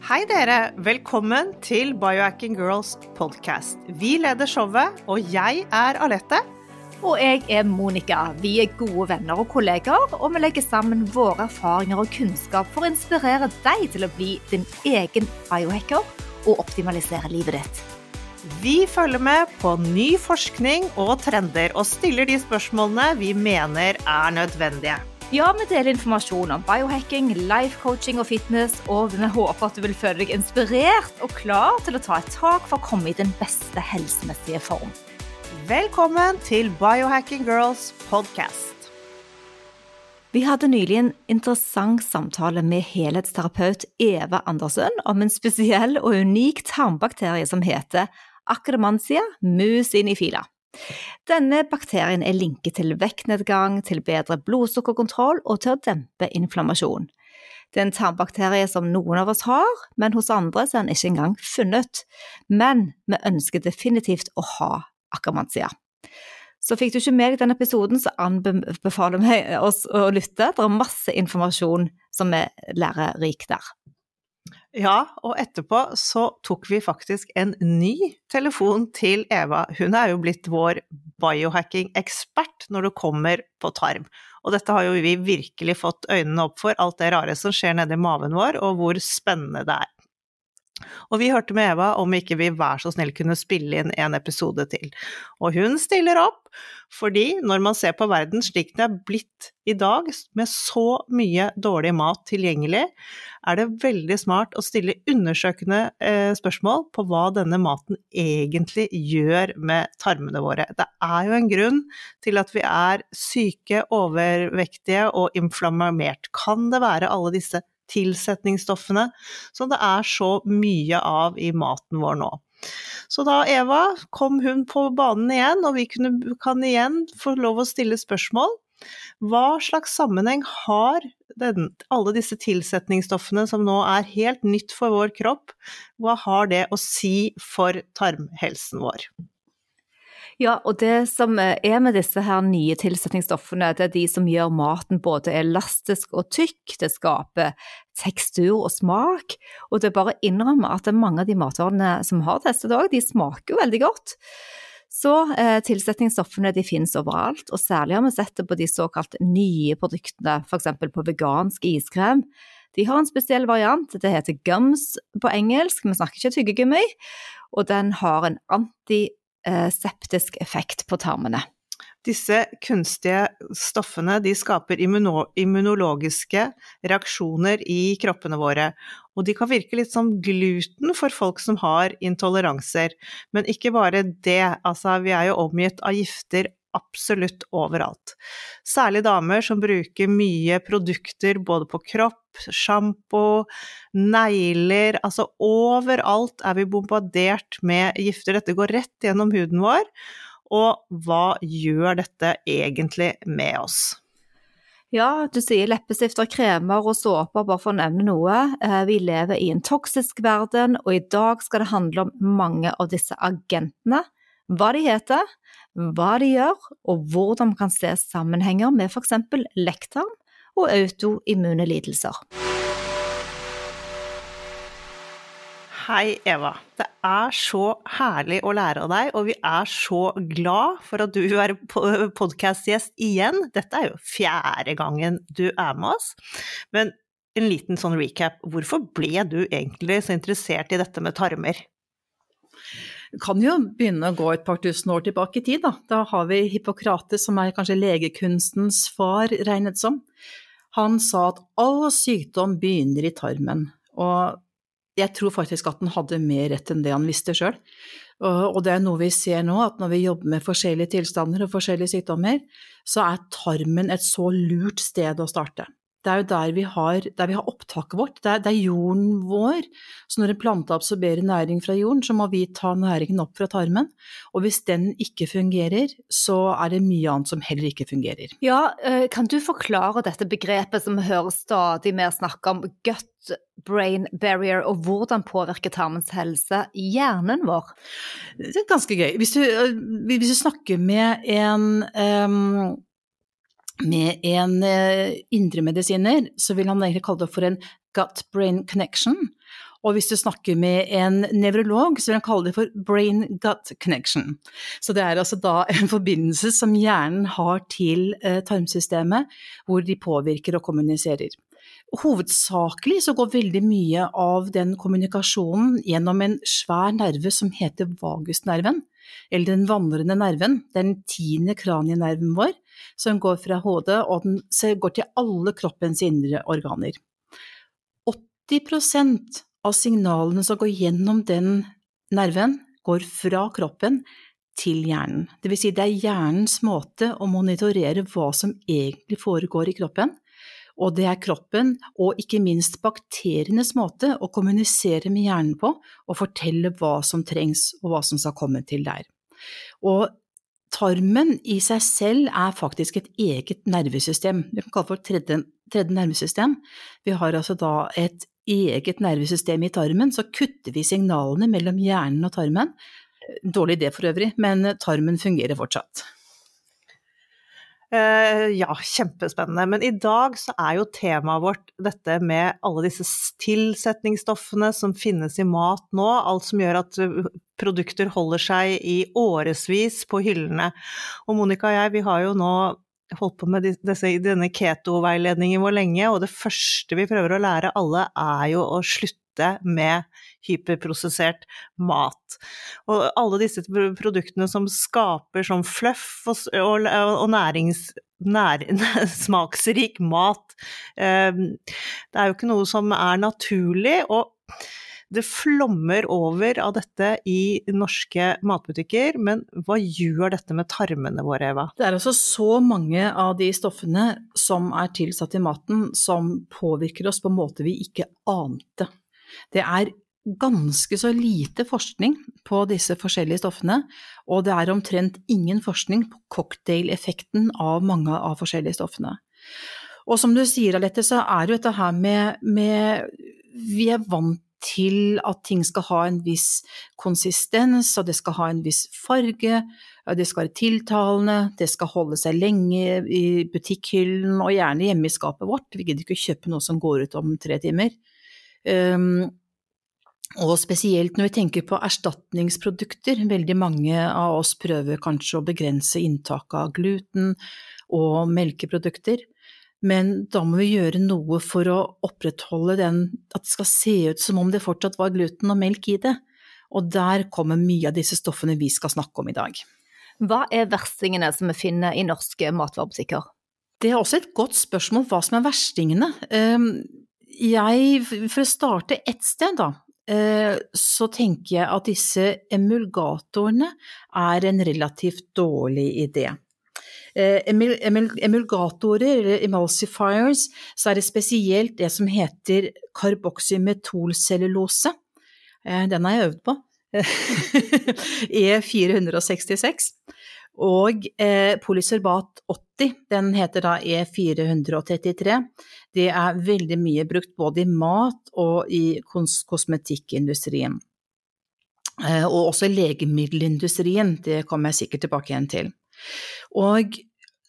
Hei dere, velkommen til Biohacking Girls podcast. Vi leder showet, og jeg Alette. Og jeg Monica. Vi gode venner og kolleger, og vi legger sammen våre erfaringer og kunnskap for å inspirere deg til å bli din egen biohacker og optimalisere livet ditt. Vi følger med på ny forskning og trender, og stiller de spørsmålene vi mener nødvendige. Ja, vi deler informasjon om biohacking, life coaching og fitness, og vi håper at du vil føle deg inspirert og klar til å ta et tak for å komme i den beste helsemessige form. Velkommen til Biohacking Girls podcast. Vi hadde nylig en interessant samtale med helhetsterapeut Eva Andersen om en spesiell og unik tarmbakterie som heter Akkermansia mucinifila. Denne bakterien linket til vektnedgang, til bedre blodsukkerkontroll og til å dempe inflammasjon. Det en tarmbakterie som noen av oss har, men hos andre så den ikke engang funnet. Men vi ønsker definitivt å ha Akkermansia. Så fikk du ikke med deg denne episoden, så anbefaler vi oss å lytte. Det masse informasjon som lærerik der. Ja, og etterpå så tok vi faktisk en ny telefon til Eva. Hun jo blitt vår biohacking-ekspert når det kommer på tarm. Og dette har jo vi virkelig fått øynene opp for, alt det rare som skjer nede i maven vår, og hvor spennende det Og vi hørte med Eva om ikke vi vær så snill kunne spille inn en episode til. Og hun stiller opp, fordi når man ser på verden slik det blitt i dag, med så mye dårlig mat tilgjengelig, det veldig smart å stille undersøkende spørsmål på hva denne maten egentlig gjør med tarmene våre. Det jo en grunn til at vi syke, overvektige og inflammert. Kan det være alle disse tilsetningsstoffene som det så mye av i maten vår nå? Så da Eva kom hun på banen igjen, og vi kan igjen få lov å stille spørsmål. Hva slags sammenheng har alle disse tilsetningsstoffene som nå helt nytt for vår kropp? Hva har det å si for tarmhelsen vår? Ja, og det som med disse her nye tilsetningsstoffene, det de som gjør maten både elastisk og tykk, det skaper tekstur og smak, og det bare innrømmer at mange av de matvarene som har testet også, de smaker jo veldig godt. Så tilsetningsstoffene de finnes overalt, og særlig har vi sett det på de såkalt nye produktene, for eksempel på vegansk iskrem. De har en spesiell variant, det heter gums på engelsk, vi snakker ikke tyggegummi, og den har en antiseptisk effekt på tarmene. Disse kunstige stoffene, de skaper immunologiske reaksjoner i kroppene våre, og de kan virke litt som gluten for folk som har intoleranser. Men ikke bare det, altså vi jo omgitt av gifter absolutt overalt. Særlig damer som bruker mye produkter både på kropp, shampoo, negler, altså overalt vi bombardert med gifter. Dette går rett gjennom huden vår, og hva gjør dette egentlig med oss? Ja, du sier leppestifter, kremer og såper, bare for å nevne noe. Vi lever i en toksisk verden, og i dag skal det handle om mange av disse agentene. Hva de heter, hva de gjør, og hvordan man kan se sammenhenger med for eksempel lekktarm og autoimmune lidelser. Hei Eva, det så herlig å lære av deg, og vi så glad for at du podcastgjest igjen. Dette jo 4. gangen du med oss, men en liten sånn recap. Hvorfor ble du egentlig så interessert i dette med tarmer? Vi kan jo begynne å gå et par tusen år tilbake i tid. Da har vi Hippokrates, som kanskje legekunstens far regnet som. Han sa at all sykdom begynner i tarmen, og jeg tror faktisk at han hadde mer rett enn det han visste selv. Og det noe vi ser nå, at når vi jobber med forskjellige tilstander og forskjellige sykdommer, så tarmen et så lurt sted å starte. Det jo der vi har opptaket vårt, det jorden vår. Så når en plante absorberer næring fra jorden, så må vi ta næringen opp fra tarmen. Og hvis den ikke fungerer, så det mye annet som heller ikke fungerer. Ja, kan du forklare dette begrepet som vi hører stadig mer snakke om, gut-brain barrier, og hvordan påvirker tarmens helse i hjernen vår? Det ganske gøy. Hvis du snakker med en indremedisiner, så vil han egentlig kalle det for en gut-brain connection. Og hvis du snakker med en nevrolog, så vil han kalle det for brain-gut connection. Så det altså da en forbindelse som hjernen har til tarmsystemet, hvor de påvirker og kommuniserer. Hovedsakelig så går veldig mye av den kommunikasjonen gjennom en svær nerve som heter vagusnerven, eller den vandrende nerven, den 10. kranienerven vår, som går fra hodet, og den går til alle kroppens indre organer. 80% av signalene som går gjennom den nerven, går fra kroppen til hjernen. Det vil si det hjernens måte å monitorere hva som egentlig foregår i kroppen, og det kroppen og ikke minst bakterienes måte å kommunisere med hjernen på og fortelle hva som trengs og hva som skal komme til der. Og tarmen i seg selv faktisk et eget nervesystem. Vi kan kalle det for tredje nervesystem. Vi har altså da et eget nervesystem i tarmen, så kutter vi signalene mellom hjernen og tarmen. Dårlig idé for øvrig, men tarmen fungerer fortsatt. Ja, kjempespennende. Men i dag så jo temaet vårt dette med alle disse tilsetningsstoffene som finnes i mat nå, alt som gjør at produkter holder seg i årevis på hyllene. Og Monica og jeg, vi har jo nå holdt på med denne keto-veiledningen vår lenge, og det første vi prøver å lære alle jo å slutte med hyperprosessert mat. Og alle disse produktene som skaper sånn fluff og smaksrik mat, det jo ikke noe som naturlig, og det flommer over av dette i norske matbutikker, men hva gjør dette med tarmene våre, Eva? Det altså så mange av de stoffene som tilsatt i maten som påvirker oss på en måte vi ikke ante. Det ganske så lite forskning på disse forskjellige stoffene, og det omtrent ingen forskning på cocktail-effekten av mange av forskjellige stoffene. Og som du sier, Alette, så det jo dette her med vi vant til at ting skal ha en viss konsistens, og det skal ha en viss farge, det skal være tiltalende, det skal holde seg lenge i butikkhyllen, og gjerne hjemme i skapet vårt. Vi gidder ikke kjøpe noe som går ut om 3 timer. Og spesielt når vi tenker på erstatningsprodukter, veldig mange av oss prøver kanskje å begrense inntaket av gluten og melkeprodukter, men da må vi gjøre noe for å opprettholde at det skal se ut som om det fortsatt var gluten og melk i det, og der kommer mye av disse stoffene vi skal snakke om i dag. Hva verstingene som vi finner i norske matvarebutikker? Det også et godt spørsmål hva som verstingene. For å starte et sted da, så tenker jeg at disse emulgatorene en relativt dårlig idé. Emulgatorer, eller emulsifiers, så det spesielt det som heter karboksymetolcellulose. Den har jeg øvd på. E466. Og polysorbat 80, den heter da E433. Det veldig mye brukt både i mat og i kosmetikkindustrien. Og også legemiddelindustrien, det kommer jeg sikkert tilbake igjen til. Og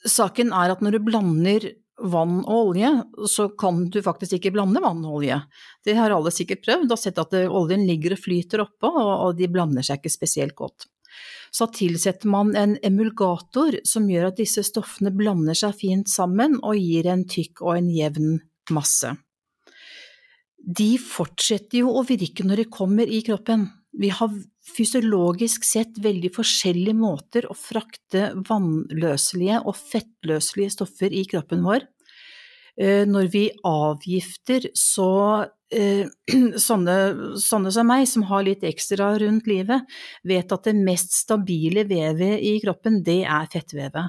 saken at når du blander vann og olje, så kan du faktisk ikke blande vann og olje. Det har alle sikkert prøvd, og sett at oljen ligger og flyter oppå, og de blander seg ikke spesielt godt. Så tilsetter man en emulgator som gjør at disse stoffene blander seg fint sammen og gir en tykk og en jevn masse. De fortsetter jo å virke når de kommer i kroppen. Vi har fysiologisk sett veldig forskjellige måter å frakte vannløselige og fettløselige stoffer i kroppen vår. Når vi avgifter, så sånne som meg, som har litt ekstra rundt livet, vet at det mest stabile vevet i kroppen, det fettvevet.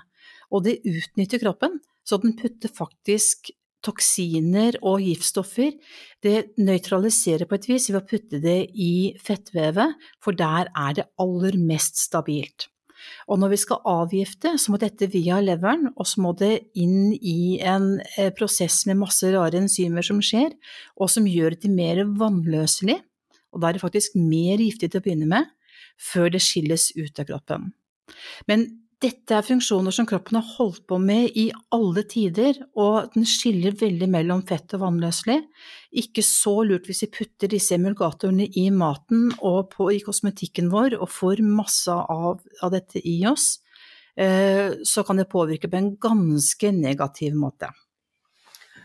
Og det utnytter kroppen, så den putter faktisk toksiner og giftstoffer, det nøytraliserer på et vis ved å putte det i fettvevet, for der det aller mest stabilt. Og når vi skal avgifte, så må dette via leveren, og så må det inn i en prosess med masse rare enzymer som skjer, og som gjør det mer vannløselig, og da det faktisk mer giftig til å begynne med, før det skilles ut av kroppen. Men Dette funksjoner som kroppen har holdt på med I alle tider, og den skiller veldig mellom fett og vannløselig. Ikke så lurt hvis vi putter disse emulgatorene I maten og I kosmetikken vår, og får masse av dette I oss, så kan det påvirke på en ganske negativ måte.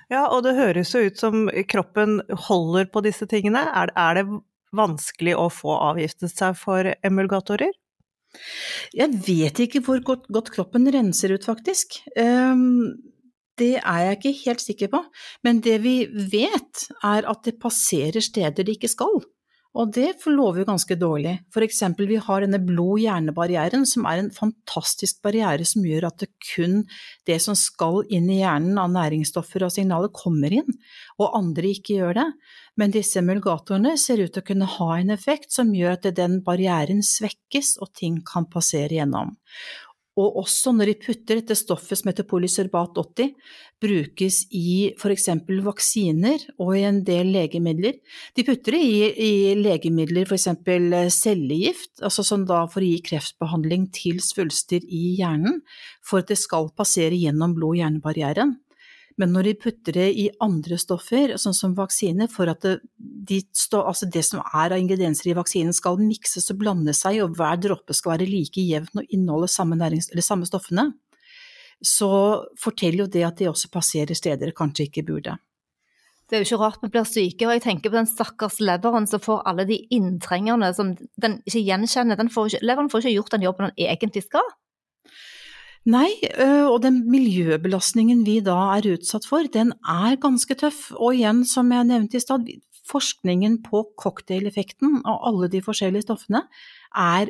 Ja, og det høres jo ut som kroppen holder på disse tingene. Er det vanskelig å få avgiftet seg for emulgatorer? Jeg vet ikke hvor godt kroppen renser ut faktisk. Det jeg ikke helt sikker på, men det vi vet at det passerer steder det ikke skal. Og det forlover jo ganske dårlig. For eksempel, vi har denne blod-hjernebarrieren, som en fantastisk barriere som gjør at det kun det som skal inn I hjernen av næringsstoffer og signaler kommer inn, og andre ikke gjør det. Men disse emulgatorene ser ut til å kunne ha en effekt som gjør at den barrieren svekkes, og ting kan passere gjennom. Og også når de putter dette stoffet som heter polysorbat 80, brukes I for eksempel vaksiner og I en del legemidler. De putter det I legemidler, for eksempel cellegift, altså som da for å gi kreftbehandling til svulster I hjernen, for at det skal passere gjennom blod-hjernebarrieren. Men når de putter det I andre stoffer, sånn som vaksiner, for at det som av ingredienser I vaksinen skal mikses og blande seg, og hver droppe skal være like jevn og inneholde samme stoffene, så forteller jo det at de også passerer steder kanskje ikke burde. Det jo ikke rart vi blir syke, og jeg tenker på den stakkars leveren som får alle de inntrengerne som den ikke gjenkjenner. Leveren får ikke gjort den jobben den egentlig skal. Nei, og den miljøbelastningen vi da utsatt for, den ganske tøff. Og igjen, som jeg nevnte I stad, forskningen på cocktaileffekten av alle de forskjellige stoffene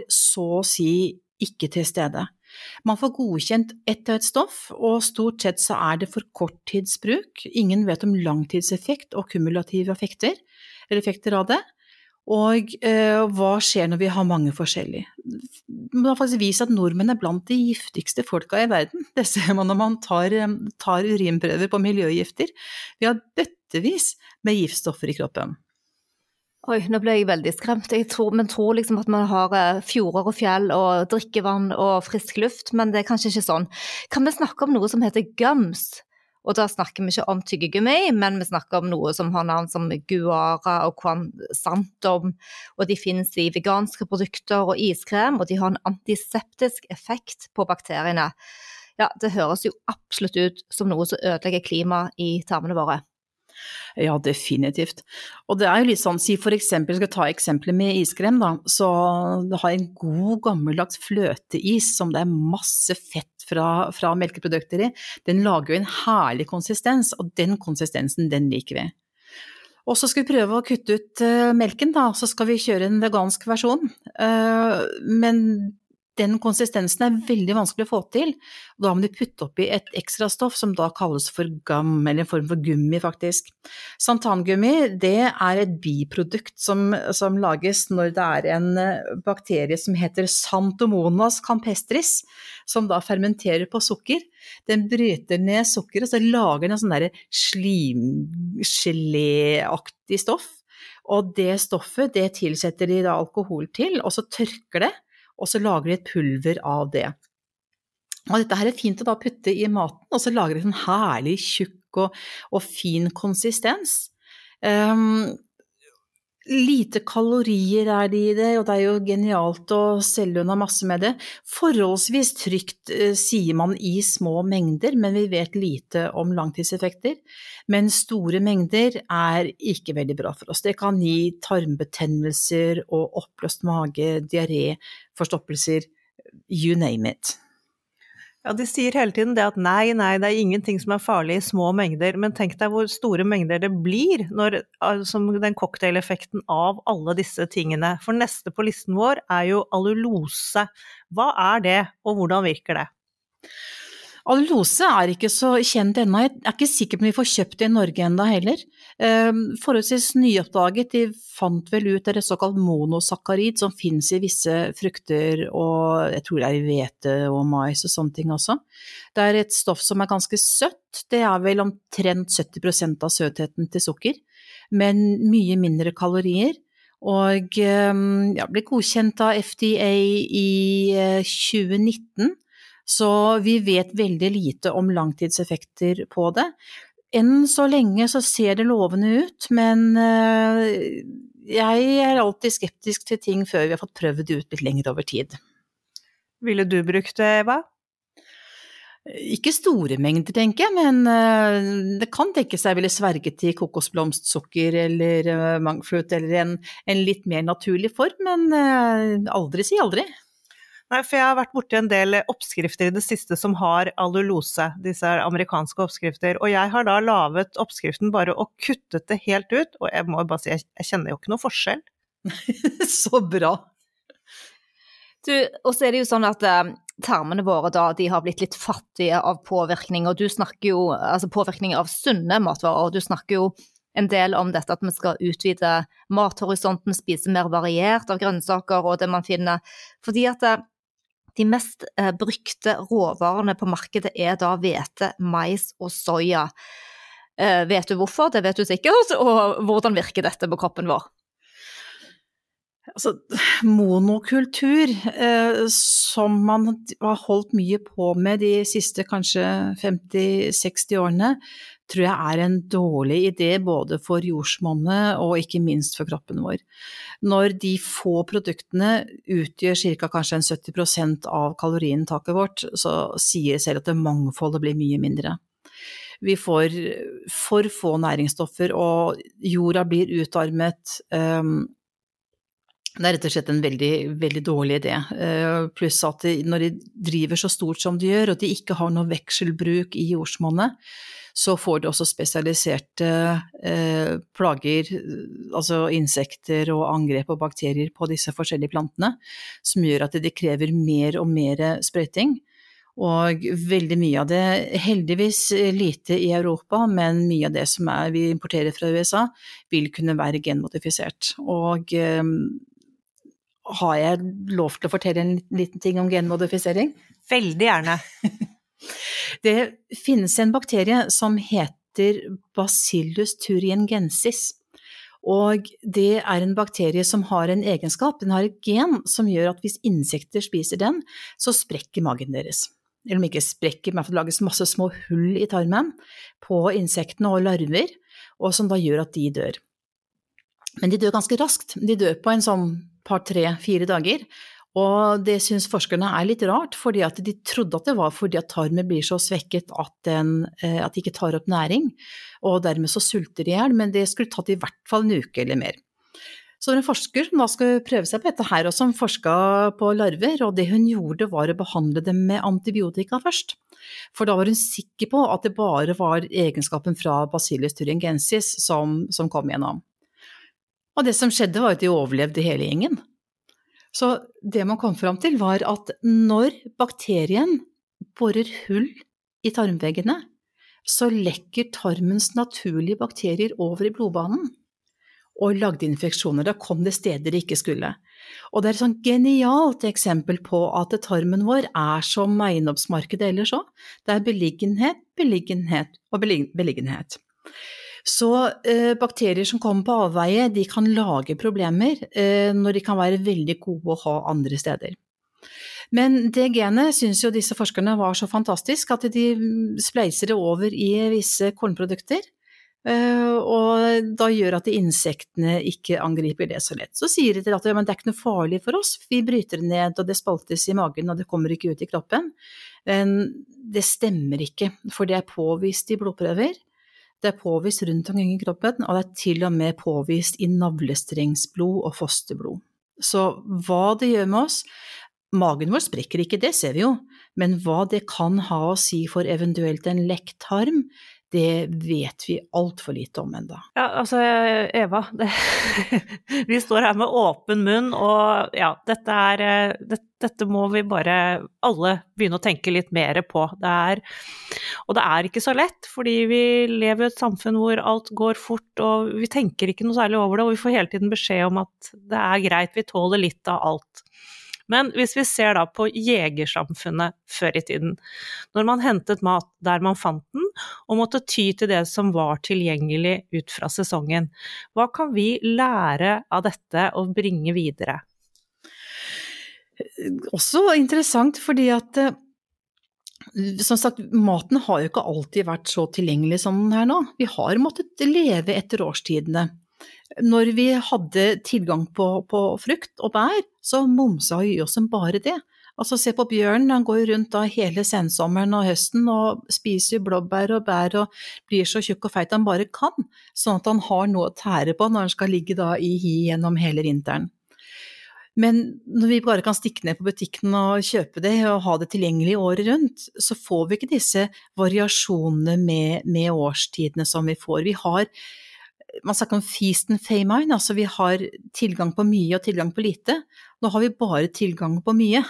så å si ikke til stede. Man får godkjent ett og et stoff, og stort sett så det for korttidsbruk. Ingen vet om langtidseffekt og kumulative effekter av det. Og hva skjer når vi har mange forskjellige? Man har faktisk vist at nordmenn blant de giftigste folka I verden. Det ser man når man tar urinprøver på miljøgifter. Vi har bøttevis med giftstoffer I kroppen. Oi, nå ble jeg veldig skremt. Men tror liksom at man har fjorder og fjell og drikkevann og frisk luft, men det kanskje ikke sånn. Kan vi snakke om noe som heter gums? Og da snakker vi ikke om tyggegummi, men vi snakker om noe som har navn som guara og quansantum, og de finnes I veganske produkter og iskrem, og de har en antiseptisk effekt på bakteriene. Ja, det høres jo absolutt ut som noe som ødelegger klimaet I tarmene våre. Ja, definitivt. Og det jo litt sånn, si for eksempel, skal ta eksempler med iskrem da, så det har en god gammeldags fløteis som det masse fett fra melkeprodukter I. Den lager jo en herlig konsistens, og den konsistensen, den liker vi. Og så skal vi prøve å kutte ut melken da, så skal vi kjøre en vegansk versjon. Men den konsistensen veldig vanskelig å få til, og da må de putte opp I et ekstra stoff som da kalles for gum, eller en form for gummi faktisk. Santangummi, det et biprodukt som lages når det en bakterie som heter Xanthomonas campestris, som da fermenterer på sukker. Den bryter ned sukker, og så lager den en sånn der slimgelé-aktig stoff, og det stoffet, det tilsetter de da alkohol til, og så tørker det, og så lager de et pulver av det. Og dette fint å da putte I maten, og så lager det en herlig tjukk og fin konsistens. Lite kalorier det I det, og det jo genialt å selge unna masse med det. Forholdsvis trygt sier man I små mengder, men vi vet lite om langtidseffekter. Men store mengder ikke veldig bra for oss. Det kan gi tarmbetennelser og oppløst mage, diaré, forstoppelser, you name it. Ja, de sier hele tiden det at nei, det ingenting som farlig I små mengder, men tenk deg hvor store mengder det blir når, som den cocktaileffekten av alle disse tingene. For neste på listen vår jo allulose. Hva det, og hvordan virker det? Allulose ikke så kjent ennå. Jeg ikke sikker på om vi får kjøpt det I Norge enda heller. Forholdsvis nyoppdaget, de fant vel ut det såkalt monosakkarid som finnes I visse frukter, og jeg tror det I hvete og mais og sånne ting også. Det et stoff som ganske søtt, det vel omtrent 70% av søtheten til sukker, men mye mindre kalorier, og ble godkjent av FDA I 2019, Så vi vet veldig lite om langtidseffekter på det. Enn så lenge så ser det lovende ut, men jeg er alltid skeptisk til ting før vi har fått prøvd det ut litt lenger over tid. Ville du brukt det, Eva? Ikke store mengder, tenker jeg, men det kan tenkes jeg ville sverget til kokosblomstsukker eller mangflut eller en litt mer naturlig form, men aldri si aldri. Nei, for jeg har vært borti en del oppskrifter i det siste som har allulose, disse amerikanske oppskrifter, og jeg har da lavet oppskriften bare og kuttet det helt ut, og jeg må bare si, jeg kjenner jo ikke noe forskjell. Så bra! Og så det jo sånn at tarmene våre da, de har blitt litt fattige av påvirkning, og du snakker jo, altså påvirkning av sunne matvarer, og du snakker jo en del om dette at vi skal utvide mathorisonten, spise mer variert av grønnsaker og det man finner, fordi at de mest brukte råvarene på markedet da hvete, mais og soja. Vet du hvorfor? Det vet du sikkert, og hvordan virker dette på kroppen vår? Altså, monokultur, som man har holdt mye på med de siste kanskje 50-60 årene, tror jeg en dårlig idé både for jordsmonnet og ikke minst for kroppen vår. Når de få produktene utgjør cirka kanskje 70% av kaloriinntaket vårt, så sier selv at det mangfoldet blir mye mindre. Vi får for få næringsstoffer, og jorda blir utarmet. Det rett og slett en veldig, veldig dårlig idé, pluss at når de driver så stort som de gjør, og de ikke har noe vekselbruk i jordsmonnet, så får de også spesialiserte plager, altså insekter og angrep og bakterier på disse forskjellige plantene, som gjør at de krever mer og mer sprøyting. Og veldig mye av det, heldigvis lite i Europa, men mye av det som vi importerer fra USA, vil kunne være genmodifisert. Og har jeg lov til å fortelle en liten ting om genmodifisering? Veldig gjerne. Det finnes en bakterie som heter Bacillus thuringiensis, og det en bakterie som har en egenskap, den har et gen som gjør at hvis insekter spiser den, så sprekker magen deres. Eller om ikke sprekker, men det lages masse små hull i tarmen på insektene og larver, og som da gjør at de dør. Men de dør ganske raskt, de dør på en sånn par, 3-4 dager, og det synes forskerne litt rart, fordi at de trodde at det var fordi at tarmen blir så svekket at de ikke tar opp næring, og dermed så sulter de ihjel, men det skulle tatt i hvert fall en uke eller mer. Så en forsker som da skulle prøve seg på dette her, og som forsket på larver, og det hun gjorde var å behandle dem med antibiotika først. For da var hun sikker på at det bare var egenskapen fra Bacillus thuringiensis som kom gjennom. Og det som skjedde var at de overlevde hele gjengen. Så det man kom fram til var at når bakterien borer hull i tarmveggene, så lekker tarmens naturlige bakterier over i blodbanen og lagde infeksjoner. Da kom det steder de ikke skulle. Og det et sånn genialt eksempel på at tarmen vår som eiendomsmarkedet ellers også. Det beliggenhet, beliggenhet og beliggenhet. Så bakterier som kommer på avveie, de kan lage problemer når de kan være veldig gode å ha andre steder. Men det genet synes jo disse forskerne var så fantastisk at de spleiser det over i visse kornprodukter, og da gjør at insektene ikke angriper det så lett. Så sier de til at men det ikke noe farlig for oss, vi bryter det ned og det spaltes i magen og det kommer ikke ut i kroppen. Men det stemmer ikke, for det påvist i blodprøver. Det påvist rundt omkring i kroppen, og det til og med påvist i navlestrengsblod og fosterblod. Så hva det gjør med oss, magen vår sprekker ikke, det ser vi jo, men hva det kan ha å si for eventuelt en lekk tarm, det vet vi alt for lite om enda. Ja, altså Eva, vi står her med åpen munn, og ja, dette må vi bare alle begynne å tenke litt mer på. Og det ikke så lett, fordi vi lever i et samfunn hvor alt går fort, og vi tenker ikke noe særlig over det, og vi får hele tiden beskjed om at det greit, vi tåler litt av alt. Men hvis vi ser da på jegersamfunnet før i tiden, når man hentet mat der man fant den, og måtte ty til det som var tilgjengelig ut fra sesongen, hva kan vi lære av dette og bringe videre? Også interessant, fordi at som sagt, maten har jo ikke alltid vært så tilgjengelig som den her nå. Vi har måttet leve etter årstidene. Når vi hadde tilgang på frukt og bær, så momsa vi oss som bare det. Altså se på bjørnen, han går rundt da hele sensommeren og høsten og spiser blåbær og bær og blir så tjukk og feit han bare kan, sånn at han har noe å tære på når han skal ligge da i hi gjennom hele vinteren. Men når vi bare kan stikke ned på butikken og kjøpe det og ha det tilgjengelig året rundt, så får vi ikke disse variasjonene med årstidene som vi får. Man snakker om feast and famine, altså vi har tilgang på mye og tilgang på lite. Nå har vi bare tilgang på mye,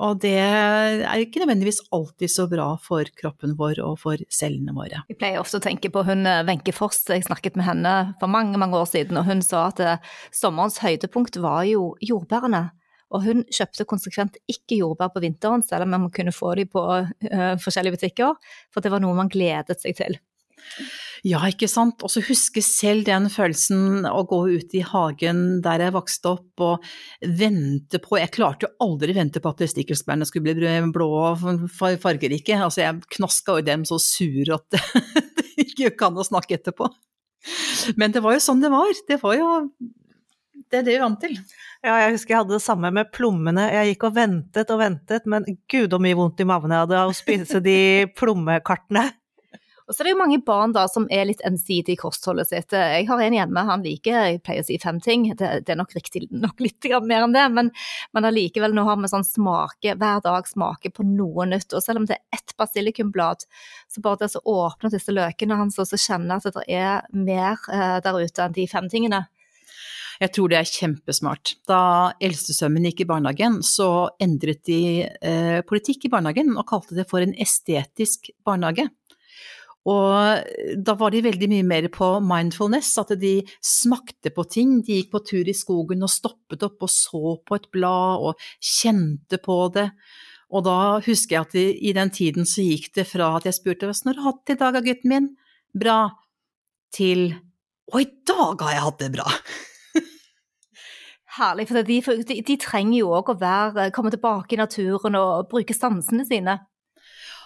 og det er ikke nødvendigvis alltid så bra for kroppen vår og for cellene våre. Jeg pleier ofte å tenke på hun Wenche Foss, jeg snakket med henne for mange år siden, og hun sa at sommerens høydepunkt var jo jordbærene. Og hun kjøpte konsekvent ikke jordbær på vinteren, selv om man kunne få de på forskjellige butikker, for det var noe man gledet seg til. Ja, ikke sant? Og så husker selv den følelsen å gå ut i hagen der jeg vokste opp og vente på, jeg klarte jo aldri vente på at stikkelsbærene skulle bli blå og fargerike, altså jeg knaska jo dem så sur at det ikke kan å snakke etterpå. Men det var jo sånn det var det er det vi vant til. Ja, jeg husker jeg hadde det samme med plommene, jeg gikk og ventet, men gud og mye vondt i maven jeg hadde av å spise de plommekartene. Og så er det jo mange barn da som er litt ensidige i kostholdet sitt. Jeg har en hjemme, han liker, jeg pleier å si 5 ting, det er nok riktig nok litt mer enn det, men allikevel nå har vi sånn hver dag smake på noe nytt, og selv om det er ett basilikumblad, så bare det å åpne disse løkene hans, og så kjenne at det er mer der ute enn de 5 tingene. Jeg tror det er kjempesmart. Da eldstesønnen gikk i barnehagen, så endret de politikk i barnehagen og kalte det for en estetisk barnehage. Og da var de veldig mye mer på mindfulness, at de smakte på ting, de gikk på tur i skogen og stoppet opp og så på et blad og kjente på det. Og da husker jeg at i den tiden så gikk det fra at jeg spurte, «Hvordan har du hatt det i dag, gutten min?» Bra. Til, «Å, i dag har jeg hatt det bra!» Herlig, for de trenger jo også å komme tilbake i naturen og bruke sansene sine.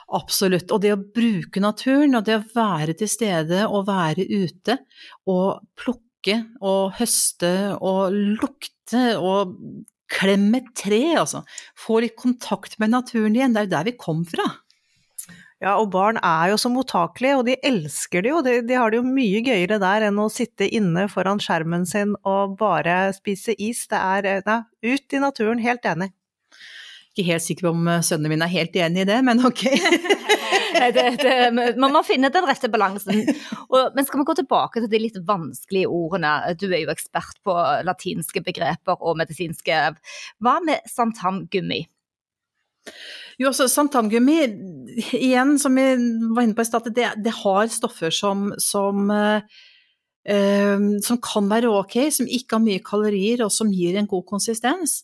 Absolutt, og det å bruke naturen, og det å være til stede og være ute, og plukke og høste og lukte og klemme et tre, altså. Få litt kontakt med naturen igjen, det er jo der vi kom fra. Ja, og barn er jo så mottakelige, og de elsker det jo, de har det jo mye gøyere der enn å sitte inne foran skjermen sin og bare spise is. Det er, ut i naturen, helt enig. Ikke helt sikker på om sønnene mine er helt enig i det, men ok. Man må finne den rette balansen. Men skal vi gå tilbake til de litt vanskelige ordene? Du er jo ekspert på latinske begreper og medisinske. Hva med santamgummi? Jo, altså santamgummi, igjen som vi var inne på i stedet, det har stoffer som kan være ok, som ikke har mye kalorier og som gir en god konsistens.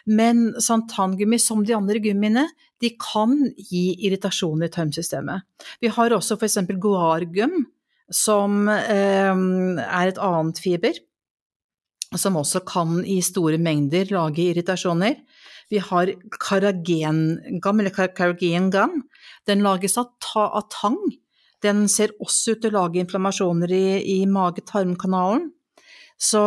Men santamgummi, som de andre gummiene, de kan gi irritasjon i tarmsystemet. Vi har også for eksempel guargum, som er et annet fiber, som også kan i store mengder lage irritasjoner. Vi har carrageen gum, den lages av tang. Den ser også ut til å lage inflammasjoner i mage-tarmkanalen. Så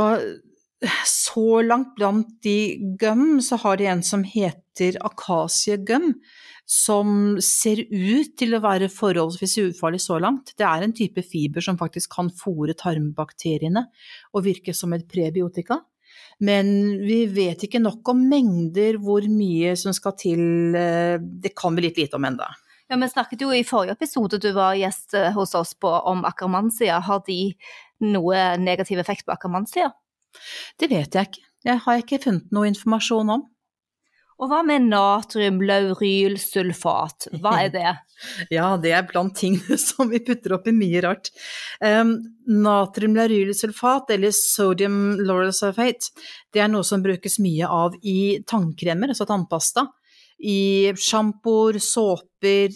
langt blant de gum, så har de en som heter akasiegum, som ser ut til å være forholdsvis ufarlig så langt. Det er en type fiber som faktisk kan fôre tarmbakteriene og virke som et prebiotika. Men vi vet ikke nok om mengder hvor mye som skal til, det kan vi litt lite om enda. Ja, vi snakket jo i forrige episode du var gjest hos oss på om akkermannsia. Har de noe negativ effekt på akkermannsia? Det vet jeg ikke. Jeg har ikke funnet noe informasjon om. Og hva med natriumlaurylsulfat? Hva er det? Ja, det er blant tingene som vi putter opp i mye rart. Natriumlaurylsulfat, eller sodium lauryl sulfate, det er noe som brukes mye av i tannkremer, altså tannpasta, i shampooer, såper,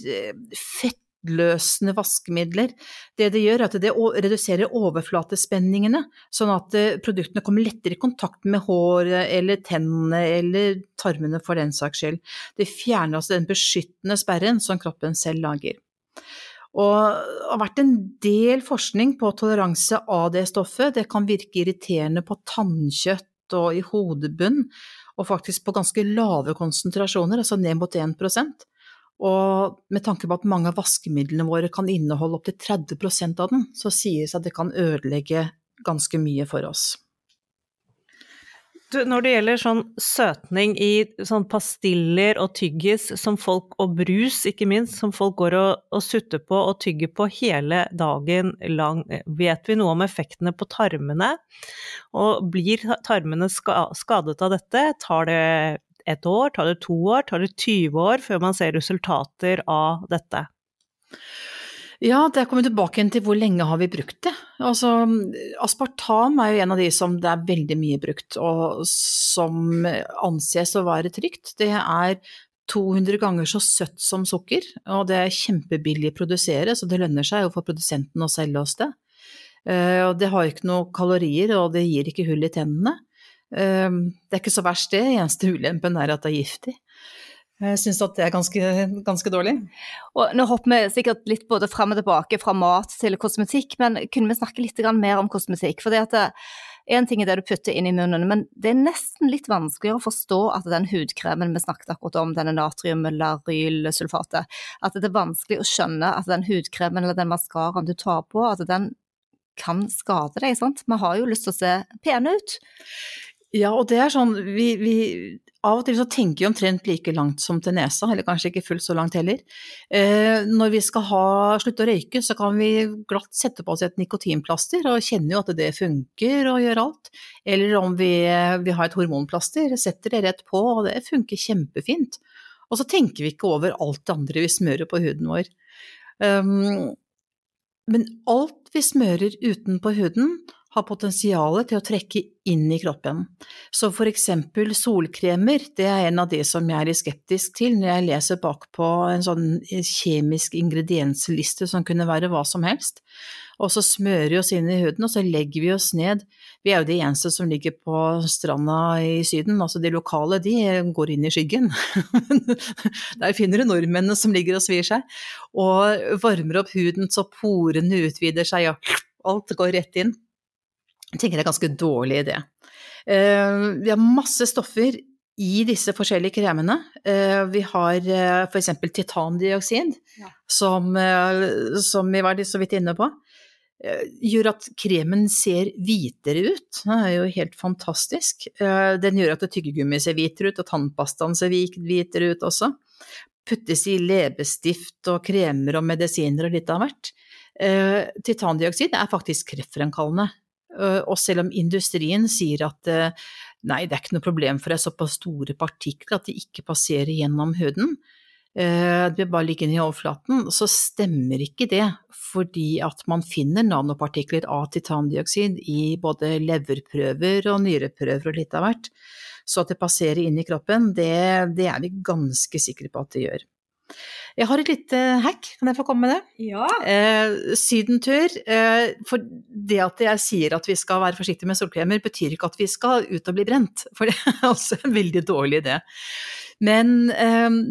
fuktløsende vaskemidler. Det gjør at det reduserer overflatespenningene, sånn at produktene kommer lettere i kontakt med håret eller tennene eller tarmene for den saks skyld. Det fjerner altså den beskyttende sperren som kroppen selv lager. Og det har vært en del forskning på toleranse av det stoffet. Det kan virke irriterende på tannkjøtt og i hodebunn, og faktisk på ganske lave konsentrasjoner, altså ned mot 1%. Og med tanke på at mange av vaskemidlene våre kan inneholde opp til 30% av den, så sies det at det kan ødelegge ganske mye for oss. Du, når det gjelder sånn søtning i sånn pastiller og tyggis som folk, og brus ikke minst, som folk går og sutter på og tygger på hele dagen lang, vet vi noe om effektene på tarmene? Og blir tarmene skadet av dette? Tar det 1 år, tar det 2 år, tar det 20 år før man ser resultater av dette? Ja, det kommer tilbake til hvor lenge har vi brukt det. Altså, aspartam jo en av de som det veldig mye brukt, og som anses å være trygt. Det 200 ganger så søtt som sukker, og det kjempebillig å produsere, så det lønner seg jo for produsenten å selge oss det. Og det har ikke noen kalorier, og det gir ikke hull i tennene. Det ikke så verst det, eneste ulempen at det giftig. Jeg synes at det ganske dårlig. Og nå hopper vi sikkert litt både frem og tilbake fra mat til kosmetikk, men kunne vi snakke litt mer om kosmetikk? For en ting det du putter inn i munnen, men det nesten litt vanskeligere å forstå at den hudkremen vi snakket akkurat om, denne natriumlaurylsulfatet, at det vanskelig å skjønne at den hudkremen eller den maskaraen du tar på, at den kan skade deg, sant? Vi har jo lyst til å se pene ut. Ja, og det sånn, vi av og til så tenker vi omtrent like langt som til nesa, eller kanskje ikke fullt så langt heller. Når vi skal slutte å røyke, så kan vi glatt sette på oss et nikotinplaster, og kjenne jo at det funker og gjør alt. Eller om vi har et hormonplaster, setter det rett på, og det funker kjempefint. Og så tenker vi ikke over alt det andre vi smører på huden vår. Men alt vi smører utenpå huden har potensialet til å trekke inn i kroppen. Så for eksempel solkremer, det en av de som jeg litt skeptisk til når jeg leser bakpå en sånn kjemisk ingrediensliste som kunne være hva som helst. Og så smører vi oss inn i huden, og så legger vi oss ned. Vi jo de eneste som ligger på stranda i Syden, altså de lokale, de går inn i skyggen. Der finner du nordmennene som ligger og svir seg, og varmer opp huden så porene utvider seg, og alt går rett inn. Jeg tenker det ganske dårlig idé. Vi har masse stoffer i disse forskjellige kremene. Vi har for eksempel titandioksid, som vi var så vidt inne på. Gjør at kremen ser hvitere ut. Det jo helt fantastisk. Den gjør at tyggegummi ser hvitere ut, og tannpastaen ser hvitere ut også. Puttes i leppestift og kremer og medisiner og litt av hvert. Titandioksid faktisk kreftfremkallende. Og selv om industrien sier at nei, det ikke noe problem for det såpass store partikler at de ikke passerer gjennom huden, det bare ligger i overflaten, så stemmer ikke det, fordi at man finner nanopartikler av titandioksid i både leverprøver og nyreprøver og litt av hvert. Så at det passerer inn i kroppen, det vi ganske sikre på at det gjør. Jeg har et lite hack, kan jeg få komme med det? Ja. Sydentur, for det at jeg sier at vi skal være forsiktige med solkremer, betyr ikke at vi skal ut og bli brent, for det også en veldig dårlig idé. Men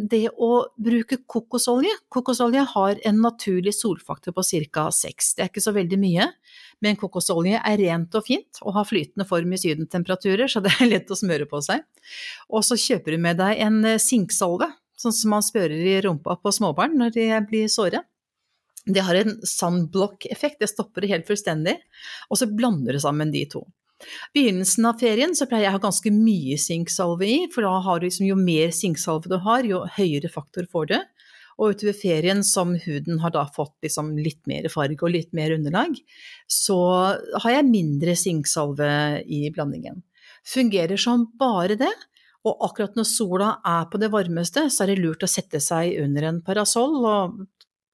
det å bruke kokosolje har en naturlig solfaktor på ca. 6. Det ikke så veldig mye, men kokosolje rent og fint, og har flytende form i sydentemperaturer, så det lett å smøre på seg. Og så kjøper du med deg en sinksalve, sånn som man spørrer i rumpa på småbarn når de blir såre. Det har en sunblock-effekt, det stopper det helt fullstendig, og så blander du sammen de to. Begynnelsen av ferien så pleier jeg å ha ganske mye sinksalve i, for da har du jo mer sinksalve du har, jo høyere faktor får du. Og utover ferien som huden har da fått litt mer farge og litt mer underlag, så har jeg mindre sinksalve i blandingen. Fungerer som bare det. Og akkurat når sola på det varmeste, så det lurt å sette seg under en parasoll og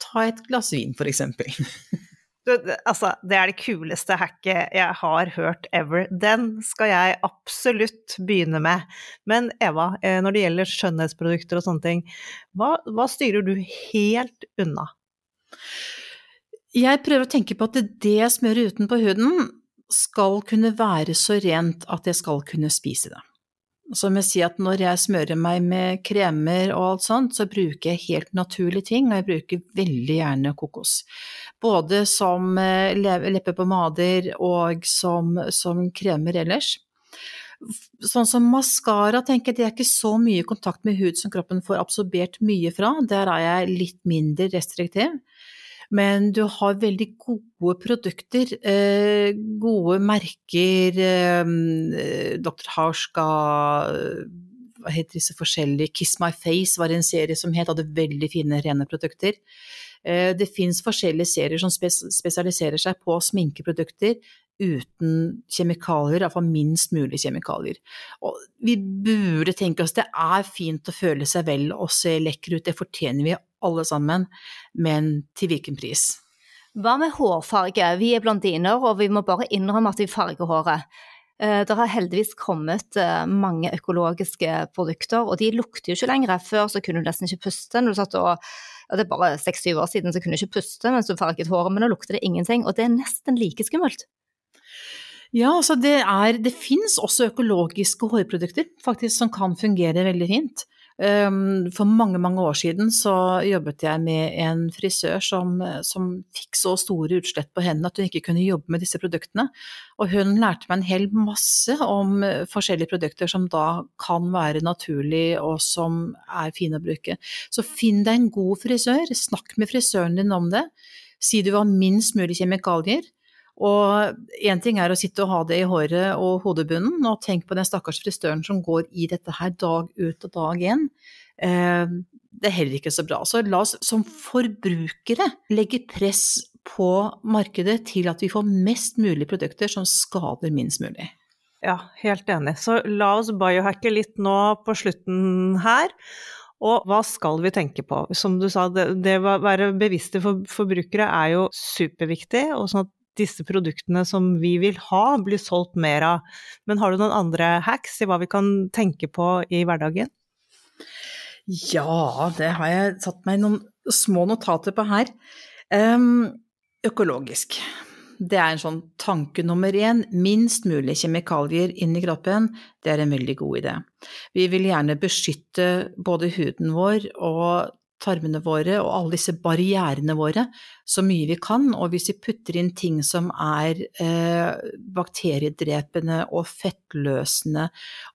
ta et glass vin, for eksempel. Altså, det det kuleste hacket jeg har hørt ever. Den skal jeg absolutt begynne med. Men Eva, når det gjelder skjønnhetsprodukter og sånne ting, hva styrer du helt unna? Jeg prøver å tenke på at det jeg smører utenpå huden skal kunne være så rent at jeg skal kunne spise det. Som jeg sier at når jeg smører meg med kremer og alt sånt, så bruker jeg helt naturlige ting, og jeg bruker veldig gjerne kokos. Både som leppepommader og som kremer ellers. Sånn som mascara, tenker jeg, det ikke så mye kontakt med hud som kroppen får absorbert mye fra. Der jeg litt mindre restriktiv. Men du har veldig gode produkter, gode merker, Dr. Hauschka, hva heter disse forskjellige, Kiss My Face var en serie som hadde veldig fine, rene produkter. Det finnes forskjellige serier som spesialiserer seg på sminkeprodukter uten kjemikalier, i hvert fall minst mulig kjemikalier. Og vi burde tenke oss, det fint å føle seg vel og se lekker ut, det fortjener vi alle sammen, men til hvilken pris? Hva med hårfarge? Vi blondiner, og vi må bare innrømme at vi farger håret. Det har heldigvis kommet mange økologiske produkter, og de lukter jo ikke lenger. Før så kunne du nesten ikke puste når du satt det bare 6-7 år siden så kunne du ikke puste mens du farget håret, men nå lukter det ingenting, og det nesten like skummelt. Ja, altså det finnes også økologiske hårprodukter faktisk som kan fungere veldig fint. For mange år siden så jobbet jeg med en frisør som fikk så store utslett på hendene at hun ikke kunne jobbe med disse produktene, og hun lærte meg en hel masse om forskjellige produkter som da kan være naturlig og som fine å bruke. Så finn deg en god frisør, snakk med frisøren din om det, si du har minst mulig kjemikalier. Og en ting å sitte og ha det i håret og hodebunnen, og tenk på den stakkars frisøren som går i dette her dag ut og dag inn. Det heller ikke så bra. Så la oss som forbrukere legge press på markedet til at vi får mest mulig produkter som skader minst mulig. Ja, helt enig. Så la oss biohacke litt nå på slutten her. Og hva skal vi tenke på? Som du sa, det å være bevisste forbrukere jo superviktig, og sånn at disse produktene som vi vil ha blir solgt mer av. Men har du noen andre hacks i hva vi kan tenke på i hverdagen? Ja, det har jeg satt meg noen små notater på her. Økologisk. Det en sånn tanke nummer 1. Minst mulig kjemikalier inn i kroppen, det en veldig god idé. Vi vil gjerne beskytte både huden vår og tarmene våre og alle disse barrierene våre så mye vi kan, og hvis vi putter inn ting som bakteriedrepende og fettløsende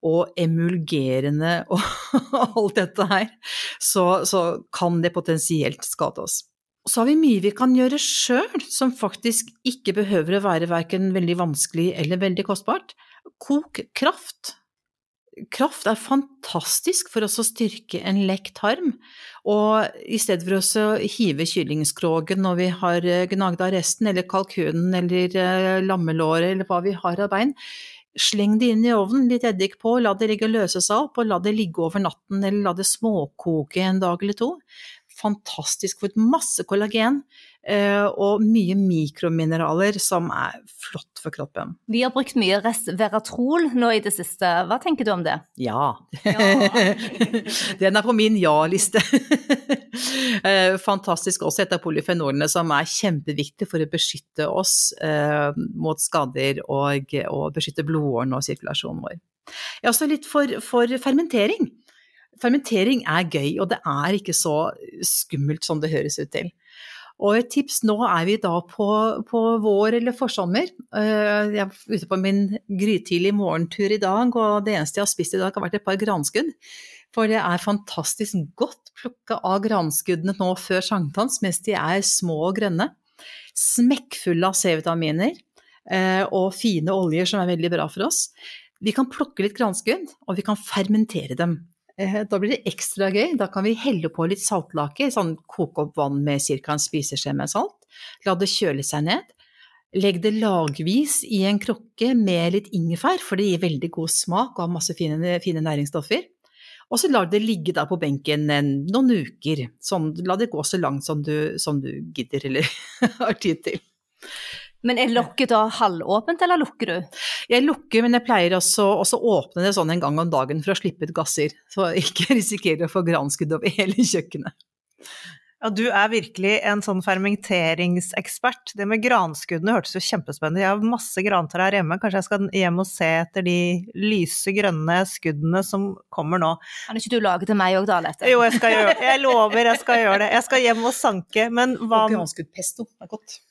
og emulgerende og alt dette her, så kan det potensielt skade oss. Så har vi mye vi kan gjøre selv, som faktisk ikke behøver å være hverken veldig vanskelig eller veldig kostbart. Kok kraft. Kraft fantastisk for oss å styrke en lekk tarm, og i stedet for oss å hive kyllingskrogen når vi har gnagd av resten, eller kalkunen, eller lammelåret, eller hva vi har av bein, sleng det inn i ovnen, litt eddik på, la det ligge og løse seg opp, og la det ligge over natten, eller la det småkoke en dag eller 2. Fantastisk, for masse kollagen og mye mikromineraler som flott for kroppen. Vi har brukt mye resveratrol nå i det siste. Hva tenker du om det? Ja. Den på min ja-liste. Fantastisk også et av polyfenolene som kjempeviktig for å beskytte oss mot skader og beskytte blodårene og sirkulasjonen vår. Ja, også litt for fermentering. Fermentering gøy, og det ikke så skummelt som det høres ut til. Og et tips, nå vi da på vår eller forsommer. Jeg ute på min grytidlig morgentur i dag, og det eneste jeg har spist i dag har vært et par granskudd. For det fantastisk godt plukket av granskuddene nå før sankthans, mens de små og grønne. Smekkfulle av C-vitaminer og fine oljer som veldig bra for oss. Vi kan plukke litt granskudd, og vi kan fermentere dem. Da blir det ekstra gøy, da kan vi helle på litt saltlake, sånn koke opp vann med cirka en spiseskje med salt, la det kjøle seg ned, legg det lagvis i en krukke med litt ingefær, for det gir veldig god smak og har masse fine næringsstoffer, og så la det ligge da på benken noen uker, sånn, la det gå så langt som du gidder eller har tid til. Men lokket da halvåpent, eller lukker du? Jeg lukker, men jeg pleier også åpne det sånn en gang om dagen for å slippe ut gasser, så ikke risikere å få granskudd over hele kjøkkenet. Ja, du virkelig en sånn fermenteringsekspert. Det med granskuddene hørtes jo kjempespennende. Jeg har masse grantrær hjemme. Kanskje jeg skal hjem og se etter de lyse grønne skuddene som kommer nå. Kan ikke du lage til meg også da, Lette? Jo, jeg lover jeg skal gjøre det. Jeg skal hjem og sanke, men hva... Og granskuddpesto godt.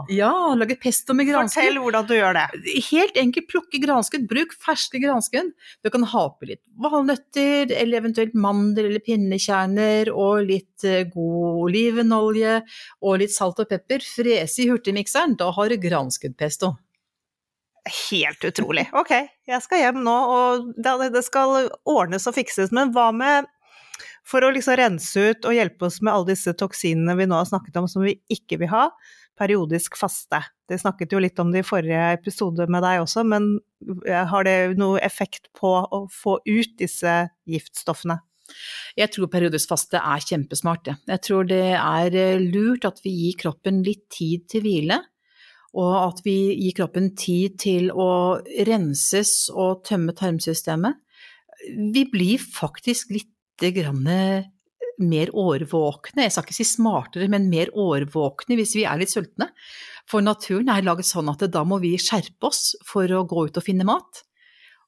Ja, lage pesto med granskudd. Fortell hvordan du gjør det. Helt enkelt, plukke granskudd, bruk ferske granskudd. Du kan ha på litt valnøtter, eller eventuelt mandel eller pinnekjerner, og litt god olivenolje, og litt salt og pepper. Frese i hurtigmikseren, da har du granskuddpesto. Helt utrolig. Ok, jeg skal hjem nå, og det skal ordnes og fikses, men hva med... For å liksom rense ut og hjelpe oss med alle disse toksinene vi nå har snakket om som vi ikke vil ha, periodisk faste. Det snakket jo litt om det i forrige episode med deg også, men har det noe effekt på å få ut disse giftstoffene? Jeg tror periodisk faste kjempesmart. Jeg tror det lurt at vi gir kroppen litt tid til hvile, og at vi gir kroppen tid til å renses og tømme tarmsystemet. Vi blir faktisk litt mer årvåkne, jeg skal ikke si smartere, men mer årvåkne hvis vi litt sultne. For naturen laget sånn at da må vi skjerpe oss for å gå ut og finne mat.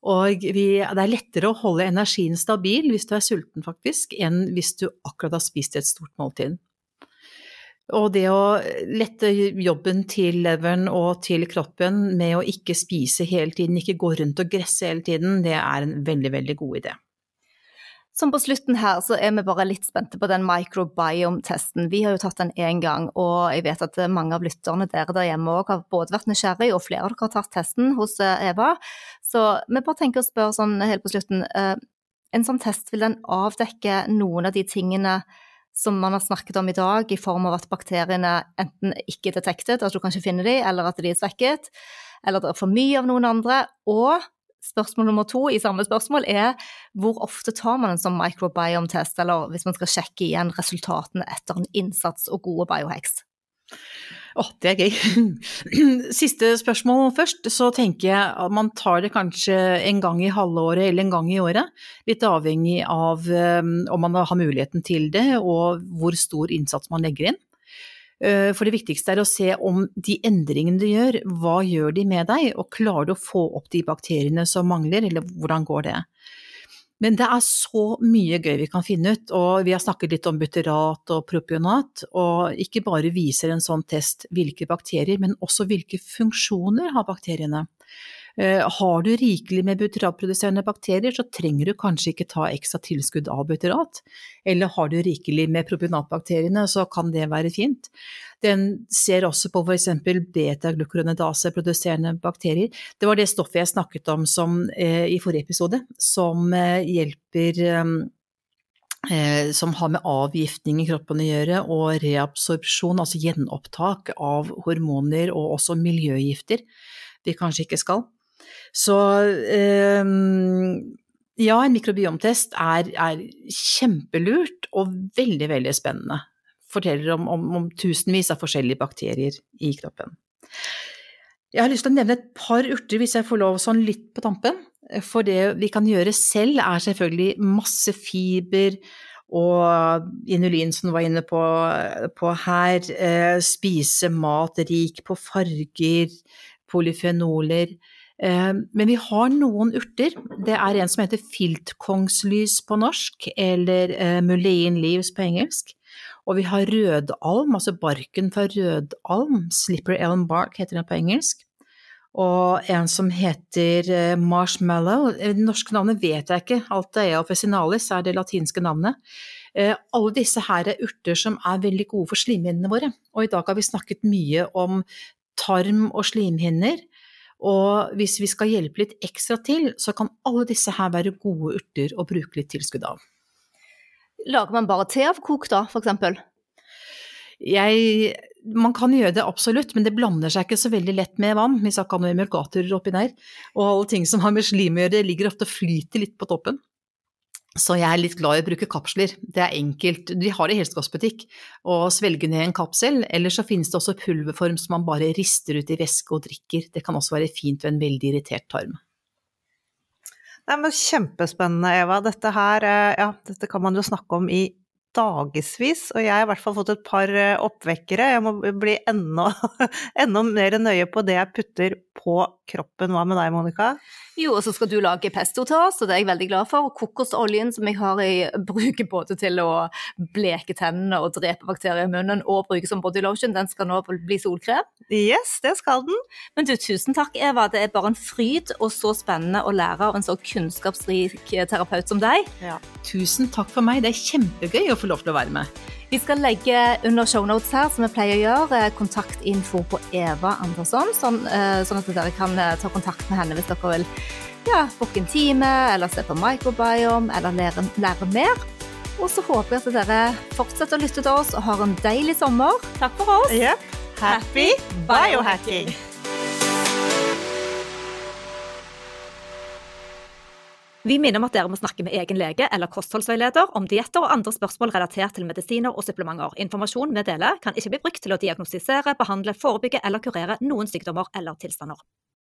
Og det lettere å holde energien stabil hvis du sulten faktisk, enn hvis du akkurat har spist et stort måltid. Og det å lette jobben til leveren og til kroppen med å ikke spise hele tiden, ikke gå rundt og gresse hele tiden, det en veldig, veldig god idé. Som på slutten her, så vi bare litt spente på den microbiome-testen. Vi har jo tatt den en gang, og jeg vet at mange av lytterne der hjemme også har både vært nysgjerrig, og flere av dere har tatt testen hos Eva. Så vi bare tenker å spørre sånn helt på slutten, en sånn test, vil den avdekke noen av de tingene som man har snakket om i dag, i form av at bakteriene enten ikke detektet, at du kan ikke finne de, eller at de svekket, eller det for mye av noen andre, og spørsmål nummer 2 i samme spørsmål hvor ofte tar man en sånn microbiome-test, eller hvis man skal sjekke igjen resultatene etter en innsats og gode biohacks? Det gøy. Siste spørsmål først, så tenker jeg at man tar det kanskje en gang i halvåret eller en gang i året, litt avhengig av om man har muligheten til det, og hvor stor innsats man legger inn. For det viktigste å se om de endringene du gjør, hva gjør de med deg, og klarer du å få opp de bakteriene som mangler, eller hvordan går det? Men det så mye gøy vi kan finne ut, og vi har snakket litt om butyrat og propionat, og ikke bare viser en sånn test hvilke bakterier, men også hvilke funksjoner har bakteriene. Har du rikelig med butyratproduserende bakterier, så trenger du kanskje ikke ta ekstra tilskudd av butyrat, eller har du rikelig med propionatbakteriene, så kan det være fint. Den ser også på for eksempel beta-glucuronidase-produserende bakterier. Det var det stoffet jeg snakket om i forrige episode, som hjelper som har med avgiftning i kroppen å gjøre, og reabsorpsjon, altså gjenopptak av hormoner og også miljøgifter vi kanskje ikke skal. Så ja, en mikrobiomtest kjempelurt og veldig, veldig spennende. Forteller om tusenvis av forskjellige bakterier i kroppen. Jeg har lyst til å nevne et par urter hvis jeg får lov sånn litt på tampen. For det vi kan gjøre selv selvfølgelig masse fiber og inulin som du var inne på her, spise mat rik på farger, polyfenoler. Men vi har noen urter. Det en som heter filtkongslys på norsk, eller mullein leaves på engelsk. Og vi har rødalm, altså barken fra rødalm, slipper elm bark heter den på engelsk. Og en som heter marshmallow, det norske navnet vet jeg ikke, Altea officinalis det latinske navnet. Alle disse her urter som veldig gode for slimhinnene våre, og i dag har vi snakket mye om tarm og slimhinner, og hvis vi skal hjelpe litt ekstra til, så kan alle disse her være gode urter å bruke litt tilskudd av. Lager man bare te av kok da, for eksempel? Man kan gjøre det absolutt, men det blander seg ikke så veldig lett med vann, hvis jeg kan ha noen emulgatorer oppi der, og alle ting som har med slim å gjøre, ligger ofte og flyter litt på toppen. Så jeg litt glad i å bruke kapsler. Det enkelt, de har det i helsekostbutikk, og svelge ned en kapsel, eller så finnes det også pulverform som man bare rister ut i væske og drikker. Det kan også være fint ved en veldig irritert tarm. Nei, men kjempespennende, Eva. Dette her, dette kan man jo snakke om i dagesvis, og jeg har I hvert fall fått et par oppvekkere. Jeg må bli enda mer nøye på det jeg putter på kroppen. Hva med deg, Monica? Jo, og så skal du lage pesto til oss, og det er jeg veldig glad for. Kokosoljen som jeg har bruker både til å bleke tennene og drepe bakterier I munnen, og bruke som body lotion, den skal nå bli solkrem. Yes, det skal den. Men du, tusen takk Eva, det bare en fryd og så spennende å lære av en så kunnskapsrik terapeut som deg. Ja. Tusen takk for meg, det kjempegøy å få lov til å være med. Vi skal legge under shownotes her, som vi pleier å gjøre, kontaktinfo på Eva Andersson, sånn at dere kan ta kontakt med henne hvis dere vil booke en time, eller se på microbiome, eller lære mer. Og så håper jeg at dere fortsetter å lytte til oss og har en deilig sommer. Takk for oss. Yep. Happy biohacking! Vi minner om at dere må snakke med egen lege eller kostholdsveileder om dietter og andre spørsmål relatert til medisiner og supplementer. Informasjon vi deler kan ikke bli brukt til å diagnostisere, behandle, forebygge eller kurere noen sykdommer eller tilstander.